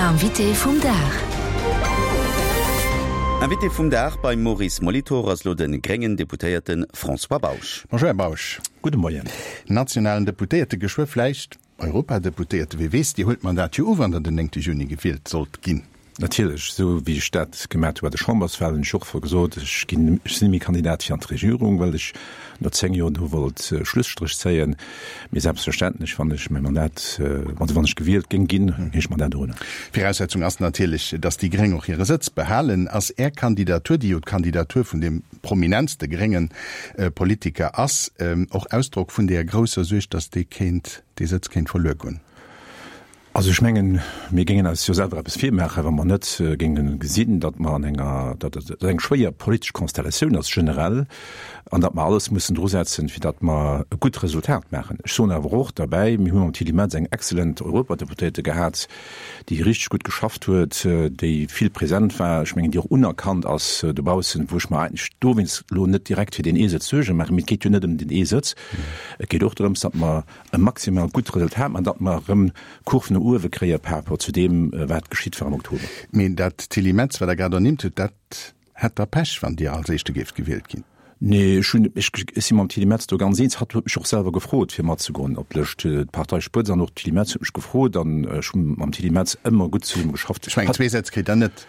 Invité vum Dag. Invité vum Dag beim Maurice Molitor ass lo de gréngen Deputéierte François Bausch. Bonjour Här Bausch. Gudde Moien. Nationalen Deputéierte, geschwë vläicht Europadeputéierte, wie weess, Dir huelt d'Mandat jo u wann Der den 9 Juni gewielt sollt ginn. Natierlech, esou wéi ech dat gemat hu bei de Chamberswahlen, hunn ech och gesot, ech ginn, ech sinn net méi Kandidat fir an d'Regierung, well ech no 10 Joer do wollt Schlusstréch zéien. Mee selbstverständlech, wann ech mäi Mandat, also wann ech gewielt géing ginn, géing ech d'Mandat unhuelen. Viraussetzung ass natierlech, datt déi Gréng och hire Sëtz behalen. Ass Är Kandidatur, déi jo d'Kandidatur vun deem prominentste grénge Politiker ass, och Ausdrock vun deeër grousser Suerg, datt dee kéint, dee Sëtz kéint verluer goen? Also ech mengen, mir géingen eis jo selwer eppes virmaachen, wa mer net géinge gesinn, datt mer an enger, datt et eng schwéier politesch Konstellatioun ass generell an datt mer alles mussen drusetzen, fir datt mer e gutt Resultat maachen. Ech soen awer och derbäi, mir hu mam Tilly Metz eng exzellent Europadeputéierte gehat, déi richteg gutt geschafft huet, déi vill present war, ech mengen, déi och unerkannt ass dobaussen, wou ech mer eigentlech dowéinst elo net direkt fir deen ee Sëtz Suerge maachen. Mee et geet jo net ëm deen ee Sëtz, et geet och drëms, datt mer e maximal gutt Resultat maachen, datt mer erëm d'Kurv no uewe kréie par rapport zu deem, wat geschitt war am Oktober. Mee dat Tilly Metz, wat Der grad ernimmt hutt, dat hätt da Pech, wann Dir als Éischte géift gewielt ginn. Nee, ech hunn, ech si mam Tilly Metz do ganz eens. Hatt huet mech och selwer gefrot, fir matzegoen op d'Lëscht. D'Parteispëtz an och d'Tilly Metz huet mech gefrot an ech hu mam Tilly Metz ëmmer gutt zesumme geschafft. Ech mengen, zwee Sätz kritt Der net.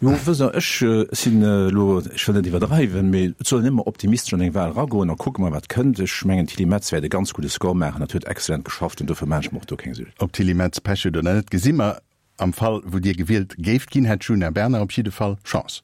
Jo, wësst Der, ech sinn elo, ech wëll net iwwerdreiwen, mee et soll een ëmmer optimistesch an eng Wahl eragoen a kucke mer, wat kënnt. Ech mengen, d'Tilly Metz wäert e ganz gudde Score maachen. Hatt huet exzellent geschafft an dofir maachen ech mer och do keng Suergen. Ob d'Tilly Metz Pech huet oder net, gesi mer. Am Fall, wou Dir gewielt géift ginn, hätt d'Djuna Bernard op jidde Fall Chance.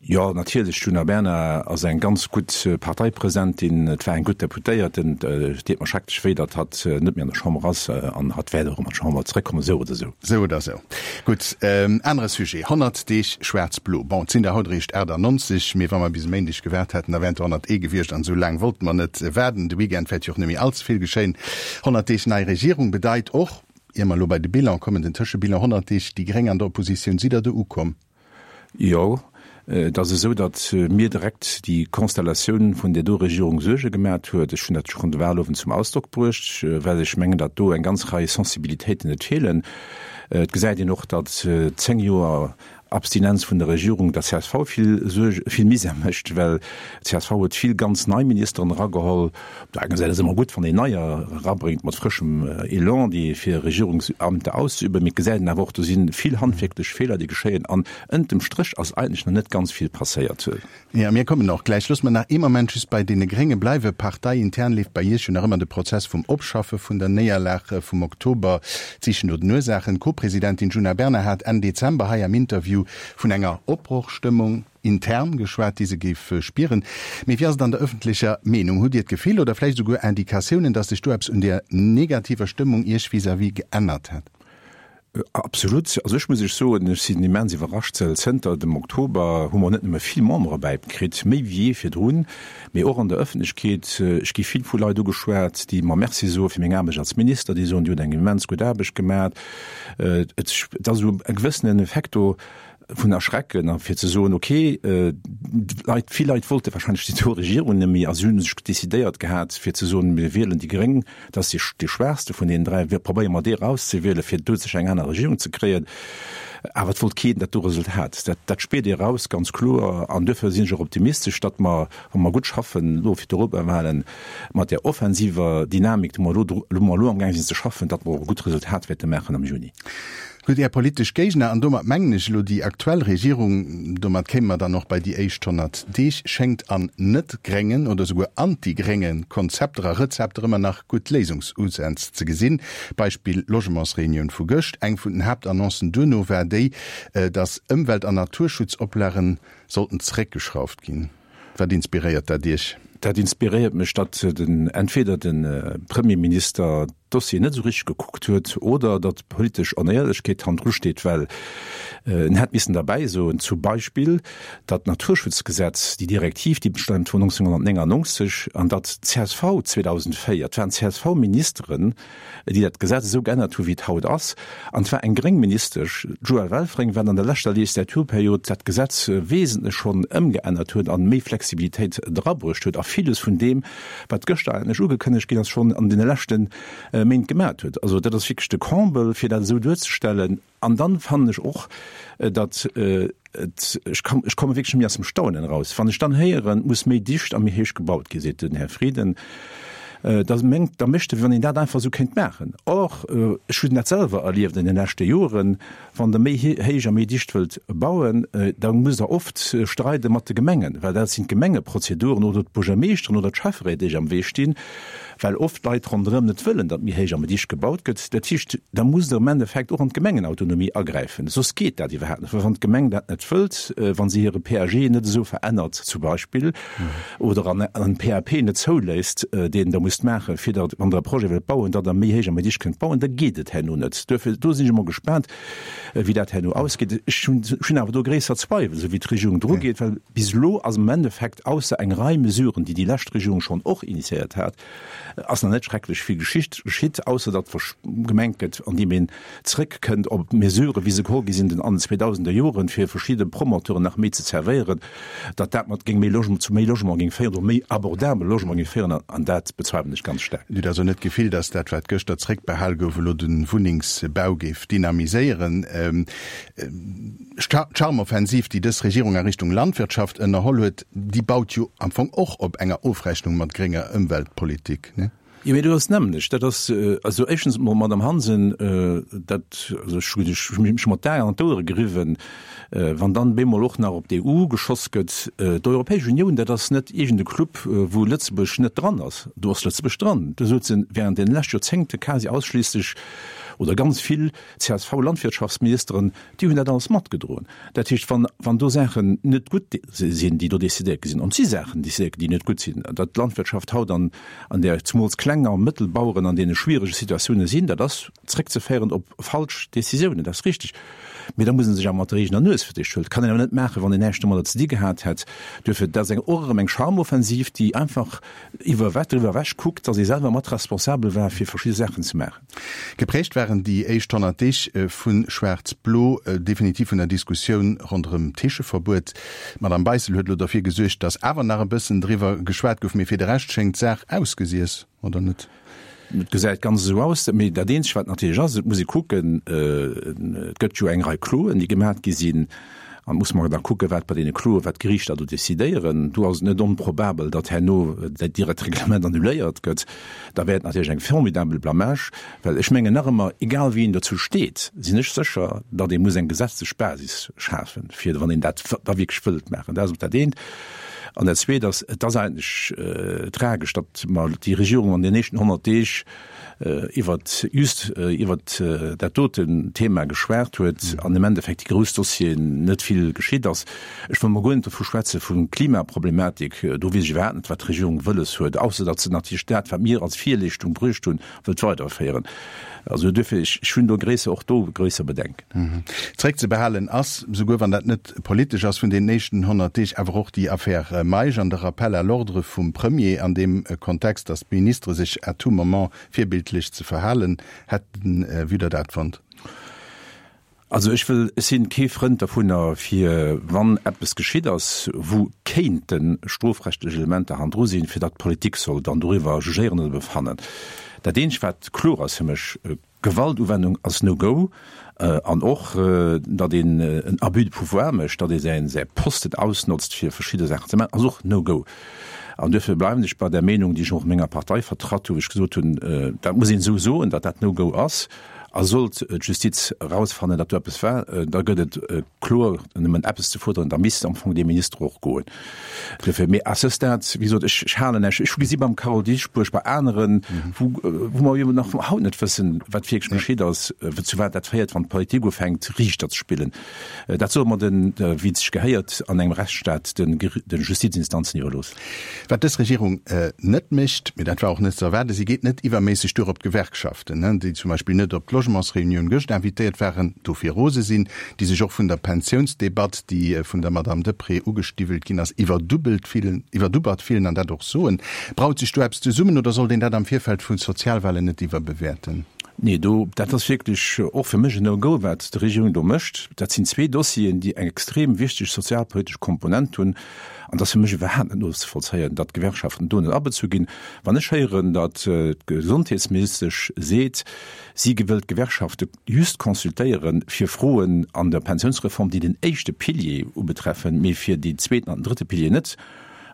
Jo, natierlech, d'Djuna Bernard ass eng ganz gutt Parteipresidentin, et war eng gutt Deputéierten. Et deet mer schrecklech wéi, datt hatt net méi an der Chamber ass an hatt wäert och erëm an d'Chamber zeréckkommen, esou oder esou. Esou oder esou. Gutt, anere Sujet, 100 Deeg schwaarz-blo. Bon, et sinn der haut eréischt 98, mee wa mer bis e Méindeg gewaart hätten, da wären et der 101 gewiescht an esou laang wollte mer net waarden. De Weekend wäert jo och net méi all ze vill geschéien. 100 Deeg nei Regierung bedeit och, ier mer elo bei de Bilan kommen, den Tëschebilan, 100 Deeg déi Gréng an der Oppositioun. Sidd Der do ukomm? Jo, et ass esou, datt mir direkt déi Konstellatioun vun där do Regierung Suerge gemat huet. Ech hunn dat schonn de Wahlowend zum Ausdrock bruecht, well ech mengen, datt do eng ganz Rei Sensibilitéiten net feelen. Et gesäit een och, datt 10 Joer Abstinenz vun der Regierung der csv vill Suerge, vill Misär mécht, well d'CSV huet vill ganz nei Ministeren erageholl. Op der enger Säit ass ëmmer gutt, wann een Neier erabréngt mat frëschem Elan, déi fir Regierungsamter auszeüben. Mee et gesäit een awer och, do si vill handwierklech Feeler, déi geschéien. An ënnert dem Stréch ass eigentlech nach net ganz vill passéiert. Jo, mir kommen och gläich. Loosse mer nach ee Moment just bei deene Grénge bleiwen. Parteiintern leeft bei Iech jo nach ëmmer de Prozess vum Opschaffe vun der Néierlag vum Oktober, d'Sichen no den Ursaachen. D'Co-Presidentin Djuna Bernard hat Enn Dezember hei am Interview vun enger Opbrochstëmmung intern geschwat, déi se géif spieren. Mee wéi ass et an der ëffentlecher Meenung? Hutt Dir d'Gefill oder vläicht esouguer Indikatiounen, datt sech do eppes un där negativer Stëmmung Iech vis-à-vis geännert hätt? Absolut. Also ech muss Iech soen, ech sinn immens iwwerrascht, well zënter dem Oktober hu mer net nëmme vill Membere bäikritt, méi wéi jee virdrun, mee och an der Ëffentlechkeet. Ech gi vill vu Leit ugeschwat, déi mer Merci soe fir meng Aarbecht als Minister, déi soen, Dir hutt eng immens gutt Aarbecht gemat. Et ass esou e gewëssenen Effekt do, vun Erschrecken a fir ze soen, okay, d'Leit, vill Leit wollte wahrscheinlech déi do Regierung net méi a si hu sech decidéiert gehat, fir ze soen, mir wielen déi Gréng, dat ass déi, déi schwaachste vun deenen dräi, wir probéiere mer déi erauszewielen, fir do sech eng aner Regierung ze kréien. Awer et wollt keen dat do Resultat. Dat, dat spiert ee eraus, ganz kloer. An duerfir sinn ech och optimistesch, datt mer, wa mer gutt schaffen elo fir d'Europawahlen, mat där offensiver Dynamik, déi mer elo, wou mer elo amgaang sinn ze schaffen, datt mer och e gutt Resultat wäerte maachen am Juni. Gutt, Är politesch Géigner, an domat mengen ech elo déi aktuell Regierung, domat kéime mer dann och bei déi éischt 100 Deeg, schéngt an net-gréngen oder souguer anti-grénge Konzepter a Rezepter ëmmer nach gutt Léisungsusänz ze gesinn. Beispill Logementsreunioun vu gëscht. Eng vun den Haaptannoncen duerno war déi, datt Ëmwelt an Naturschutzoplagen sollten zeréckgeschrauft ginn. Wat inspiréiert dat Iech? Dat inspiréiert mech, datt den, entweder de Premierminister d'Dossier net esou richteg gekuckt huet oder datt politesch Onéierlechkeet hannendru steet, well en hätt missen derbäi soen, zum Beispill, datt d'Naturschutzgesetz, déi Direktiv, déi bestaamt vun 1999, an datt d'CSV 2004, et waren CSV-Ministeren, déi dat Gesetz esou geännert hu wéi et haut ass, an et war eng gréng Ministesch, d'Joëlle Welfring, wat an der leschter Legislaturperiod dat Gesetz wesentlech schonn ëmgeännert huet an méi Flexibilitéit drabruecht huet. villes vun deem, wat gëschter eigentlech ugekënnegt ginn ass, schonn an deene leschte Méint gemat huet. Also dat ass wierklech de Comble, fir dat esou duerzestellen. An dann fannen ech och, datt et, ech kann, ech komme wierklech net méi aus dem Staunen eraus, wann ech dann héieren, et muss méi dicht a méi héich gebaut ginn, seet den Här Frieden, da mengt, da mécht e wéi wann een dat einfach esou kéint maachen. Or, ech hunn dat selwer erlieft an den leschte Joren, wann Der méi héich a méi dicht wëllt bauen, da musst Der oft streide mat de Gemengen, well dat sinn d'Gemengeprozeduren oder d'Buergermeeschteren oder d'Schäfferéit, déi am Wee stinn. well oft d'Leit ronderëm net wëllen, datt méi héich a méi dicht gebaut gëtt. Dat heescht, da musst Der am Endeffekt och an d'Gemengenautonomie agräifen, soss geet dat iwwerhaapt net. Well wann d'Gemeng dat net wëllt, wa se hire PAG net esou verännert zum Beispill oder an en PAP net zouléisst, deen Der musst maachen, fir datt, wann Der e Projet wëllt bauen, datt Der méi héich a méi dicht kënnt bauen, da geet et herno net. Duerfir, do sinn ech emol gespaant, wéi dat herno ausgeet. Ech hunn awer do gréisser Zweiwel, esou wéi d'Regierung drugeet, well bis elo ass am Endeffekt, ausser eng Rei Mesuren, déi déi lescht Regierung schonn och initiéiert hat, ass nach net schrecklech vill geschitt, geschitt, ausser datt gemengt gëtt, andeem een zrëckkënnt op Mesuren, wéi se geholl gi sinn an den 2000er Joren, fir verschidde Promoteuren nach méi ze zerwéieren, datt dat mat géing méi Logement, zu méi Logement géing féieren oder méi abordabele Logement géing féieren, an dat bezweiwelen ech ganz staark. Dir hutt also net d'Gefill, datt dat, wat gëschter zréckbehal gouf, elo de Wunnengsbau géif dynamiséieren? D'Charmoffensiv, déi dës Regierung a Richtung Landwirtschaft ënnerholl huet, déi baut jo am Fong och op enger Ofrechnung mat grénger Ëmweltpolitik, ne? Jo, mee dat ass d'nämmlecht. Dat ass, also éischtens emol, Madamm Hansen, dat, also ech hu mech mat d'Aen an d'Ouere geriwwen, wann dann bemol och nach op d'EU geschoss gëtt. D'Europäesch Unioun, dat ass net iergend e Club, wou Lëtzebuerg net dran ass. Do ass Lëtzebuerg dran. Do souzen während deene leschte Joerzéngte quasi ausschliisslech oder ganz vill CSV-Landwirtschaftsministeren, déi hunn dat alles matgedroen. Dat heescht, wann, wann do Saachen net gutt sinn, déi do decidéiert gi sinn, an et si Saachen decidéiert ginn, déi net gutt sinn, datt d'Landwirtschaft haut an, an där zemools kleng a mëttel Baueren an deene schwierege Situatioune sinn, dat ass zréckzeféieren op falsch Decisiounen, dat ass richtig. Mee da muss ee sech awer mat der eegener Nues fir d'éischt huelen. Dat kann een awer net maachen, wann een näischt domadder ze di gehat hätt. Duerfir, dat ass eng, och erëm eng Charmoffensiv, déi einfach iwwer, driwwer ewech kuckt, datt ee selwer mat responsabel war, fir verschidde Saachen ze maachen. Geprägt waren déi éischt 100 Deeg vu Schwaarz-Blo definitiv vun der Diskussioun ronderëm d'Heescheverbuet. D'Madame Beissel huet elo derfir gesuergt, datt awer nach e bëssen driwwer geschwat gouf, mee fir de Rescht schéngt d'Saach ausgesiess, oder net? Et gesäit ganz esou aus. Mee dat Eenzegt, wat natierlech ass, et muss ee kucken, et gëtt jo eng Rei Kloen, déi gemat gi sinn. An et muss mer da kucken, wat bei deene Kloen, wat d'Geriichter do decidéieren. Do ass et net onprobabel, datt herno dat direkt Reglement annuléiert gëtt. Da wär et natierlech eng formidabel Blamage, well ech mengen nach ëmmer, egal wéi een dozou steet, sinn ech sécher, datt ee muss eng gesetzlech Basis schafen, fir wann een dat da wierklech wëllt maachen. Dat ass dat eent. An dat Zweet ass, et ass eigentlech tragesch, datt mer déi Regierung an den éischten 100 Deeg, iwwert just iwwert dat doten Thema geschwat huet an im Endeffekt déi grouss Dossieren net vill geschitt ass. Ech wëll mol guer net dovu schwätze vun Klimaproblematik, do weess ech iwwerhaapt net wat d'Regierung wëlles huet, ausser datt se natierlech dat wat mir als Virleeschtung bruecht hunn, wëllt weiderféieren. Also duerfir, ech hunn do gréisser, och do gréisser Bedenken. Zréckzebehalen ass, souguer wann dat net politesch ass, vun deenen éischten 100 Deeg awer och déi Affaire Meisch an de Rappel à l'ordre vum Premier an deem Kontext, datt d'Ministere sech à tout moment virbildlech ze verhalen hätten. Wéi hutt Der dat fonnt? Also ech wëll, ech sinn kee Frënd dovunner, fir wann eppes geschitt ass, wou kéinte strofrechtlech Elementer hannendru sinn, fir datt d'Politik soll dann doriwwer jugéieren oder befannen. Dat eenzegt wat kloer ass fir mech, Gewaltuwennung ass no go an och datt een en Abus de pouvoir mécht, datt ee säin säi Posten ausnotzt fir verschidde Saachen ze maachen, ass och no go. An duerfir bleiwen ech bei där Meenung, déi ech och menger Partei vertratt hu, wou ech gesot hunn, dat muss een esou soen, datt dat no go ass. A sollt d'Justiz erausfannen, datt do eppes war, da gëtt et kloer nëmmen eppes ze fuerderen, da misst am Fong dee Minister och goen. Duerfir, mee à ce stade, wéi gesot, ech halen näischt. Ech hu gesi beim Carole Dieschbourg, bei aneren, wou wou mer jo nach haut net wëssen, wat wierklech geschitt ass, zu wat dat féiert, wann d'Politik ufänkt, Riichter ze spillen. Dat solle mer den, wéi et sech gehéiert an engem Rechtsstaat, de de Justizinstanzen iwwerloossen. Wat dës Regierung net mécht, mee dat war och net ze erwaarden, si geet net iwwerméisseg duer op d'Gewerkschaften, déi zum Beispill net op d'Logementsreunioun gëscht invitéiert waren, dofir rose sinn, déi sech och vun der Pensiounsdebatt, déi vun der Madamm Deprez ugestiwwelt ginn ass, iwwerdubbelt fillen, iwwerdubbert fillen an dat och soen. Braut sech do eppes zesummen oder sollt een dat am Virfeld vu Sozialwahlen net iwwerbewäerten? Nee, do, dat ass wierklech och fir mech en No-Go, wat d'Regierung do mécht. Dat sinn zwee Dossieren, déi eng extrem wichteg sozialpolitesch Komponent hunn. An et ass fir mech iwwerhaapt net nozevollzéien, datt d'Gewerkschaften do net abezu ginn. Wann ech héieren, datt d'Gesondheetsministesch seet, si wëllt d'Gewerkschafte just consultéiere fir Froen an der Pensiounsreform, déi den éischte Pilier ubetreffen, mee fir deen zweeten an den drëtte Pilier net,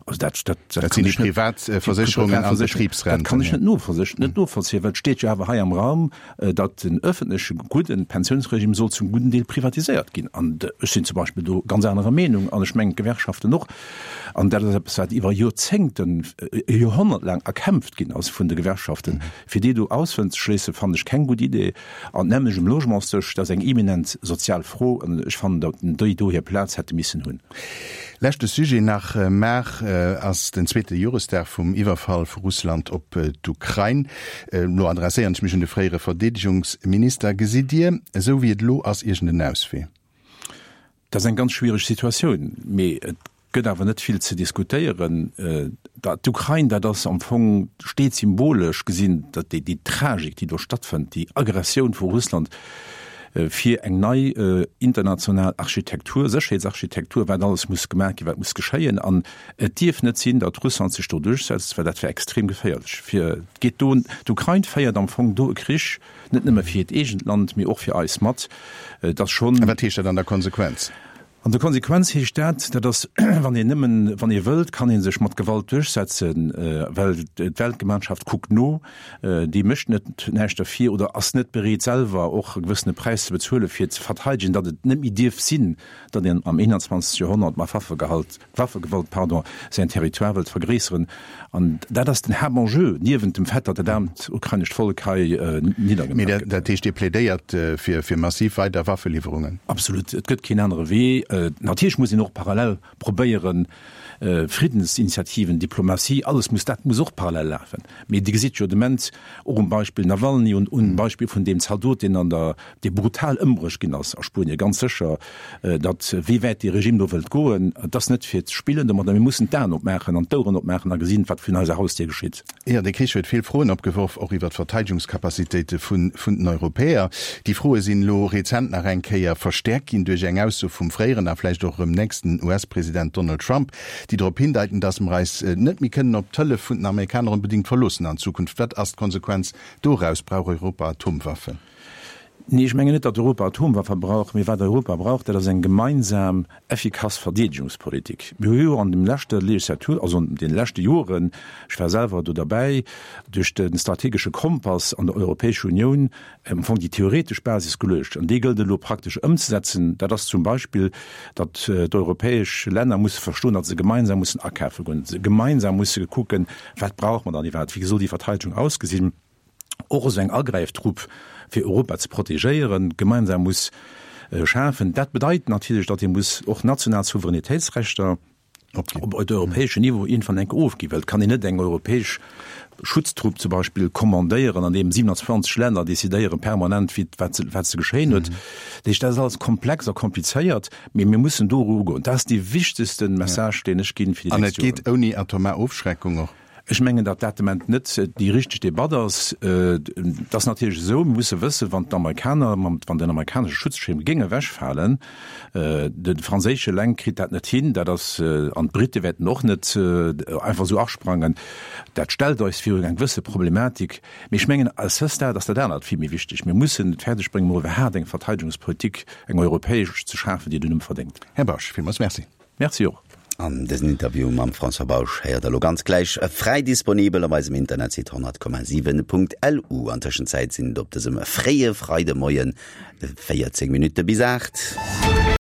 Also dat, dat, dat, dat sinn déi Privatversécherungen an Betribsrenten. Dat kann ech net novollzéien, net novollzéien, well et steet jo awer hei am Raum, datt den öffentleche gudden Pensiounsregime soll zum gudden Deel privatiséiert ginn. An ech sinn zum Beispill do ganz anerer Meenung an ech mengen d'Gewerkschaften och. An dat ass eppes, wat iwwer Joerzéngten, e Joerhonnert laang erkämpft ginn ass vun de Gewerkschaften. Fir déi do auszeschléissen, fannen ech keng gutt Idee. An d'nämmlecht um Logementsdësch, dat ass eng eminent sozial Fro an ech fannen, datt déi do hir Plaz hätte missen hunn. Leschte Sujet nach, Mar ass den zweete Joresdag vum Iwwerfall vu Russland op d'Ukrain. Elo adresséieren ech mech un de fréiere Verdeedegungsminister. Gesitt Dir, esou wéi et elo ass, iergend en Auswee? Dat ass eng ganz schwiereg Situatioun, mee et gëtt awer net vill ze diskutéieren. D'Ukrain, dat ass am Fong, steet symbolesch gesinn, déi Tragik, déi do stattfënnt, déi Aggressioun vu Russland, fir eng nei international Architektur, Sécherheetsarchitektur, wat alles muss gemaach ginn, wat muss geschéien. An et dierf net sinn, datt Russland sech do duerchsetzt, well dat wär extrem geféierlech fir, et geet do, d'Ukrain féiert am Fong do e Krich, net nëmme fir hiert eegent Land, mee och fir eis mat. Et ass schonn. A wat heescht dat an der Konsequenz? An der Konsequenz heescht dat, dat ass, wann een nëmmen, wann ee wëllt, kann ee sech mat Gewalt duerchsetzen, well d'Weltgemeinschaft kuckt no, déi mécht net näischt derfir oder ass net bereet selwer och e gewëssene Präis ze bezuelen, fir ze verteidegen, datt et net méi dierf sinn, datt een am 21. Joerhonnert mat Waffegehalt, Waffegewalt, pardon, säin Territoire wëllt vergréisseren. An dat ass den Haaptenjeu, niewent dem Fait, datt dat aarmt ukrainescht Vollek hei niddergemaach Mee gëtt. Dat heescht, Dir plädéiert fir massiv weider Waffeliwwerungen? Absolut. Et gëtt keen anere Wee. Natierlech muss een och parallel probéieren, Friddensinitiativen, Diplomatie, alles muss, dat muss och parallel lafen. Mee Dir gesitt jo de Moment och um Beispill Nawalny und um Beispill vun deem Zaldot, deen an der, dee brutal ëmbruecht ginn ass a Spuenien, ganz sécher, datt wéi wäit dee Regime do wëllt goen, et ass net fir ze spillen domadder. Mir mussen d'Aen opmaachen an d'Oueren opmaachen a gesinn, wat virun eiser Hausdier geschitt. Jo, dee Krich huet vill Froen opgeworf, och iwwer d'Verteidigungscapacitéite vun den Europäer. Déi Froe sinn elo rezent nach eng Kéier verstäerkt ginn duerch eng Ausso vum fréieren a vläicht och erëm nächsten US-President Donald Trump, déi drop hindeiten, datt mer eis net méi kënnen op d'Hëllef vun den Amerikaner onbedéngt verloossen an Zukunft. Wat ass d'Konsequenz doraus? Brauch Europa Atomwaffen? Nee, ech mengen net, datt Europa Atomwaffe brauch, mee wat Europa brauch, dat ass eng gemeinsam effikass Verdeedegungspolitik. Mir hu jo an dem leschter Legislatur, also an deene leschte Joren, ech war selwer do derbäi, duerch de strategesche Kompass an der Europäescher Unioun am Fong déi theoretesch Basis geluecht an déi gëllt elo praktesch ëmzesetzen. Dat ass zum Beispill, datt d'europäesch Länner musse verstoen, datt se gemeinsam mussen akafe goen, datt se gemeinsam musse kucken, wat brauche mer dann iwwerhaapt, wéi soll déi Verteidegung ausgesinn. Och esou eng Agräiftrupp, fir Europa ze protegéieren, gemeinsam muss schafen. Dat bedeit natierlech, datt ee muss och national Souveränitéitsrechter op europäeschem Niveau iergendwann enk ofginn, well et kann een net eng europäesch Schutztrupp zum Beispill kommandéieren, an deem 27 Länner decidéieren permanent, wéi, wat ze, wat ze geschéien huet. Dat heescht, dat ass alles komplex a komplizéiert, mee mir mussen do erugoen. Dat ass dee wichtegste Message, deen ech ginn fir déi nächst Joren. An et geet ouni atomar Ofschreckung och? Ech mengen, datt dat de Moment net déi richteg Debatt ass. Et ass natierlech esou, mir musse wëssen, wann d'Amerikaner, wann den amerikanesche Schutzschirm géing ewechfalen, de franséische eleng kritt dat net hin, dat ass, an d'Brite wäerten och net einfach esou asprangen. Dat stellt eis virun eng gewësse Problematik. Mee ech mengen, à ce stade ass dat anert vill méi wichteg. Mir mussen et fäerdeg bréngen, mol iwwerhaapt eng Verteidegungspolitik, eng europäesch ze schafen, déi den Numm verdéngt. Här Bausch, villmools Merci. Merci och. An dësen Interview mam François Bausch héiert der lo ganz gläich fräi disponibel op eisem Internetsite 100,7.lu. An Tëschenzäit sinn et op dësem fréie Freidemoien 14 Minutte bis 8.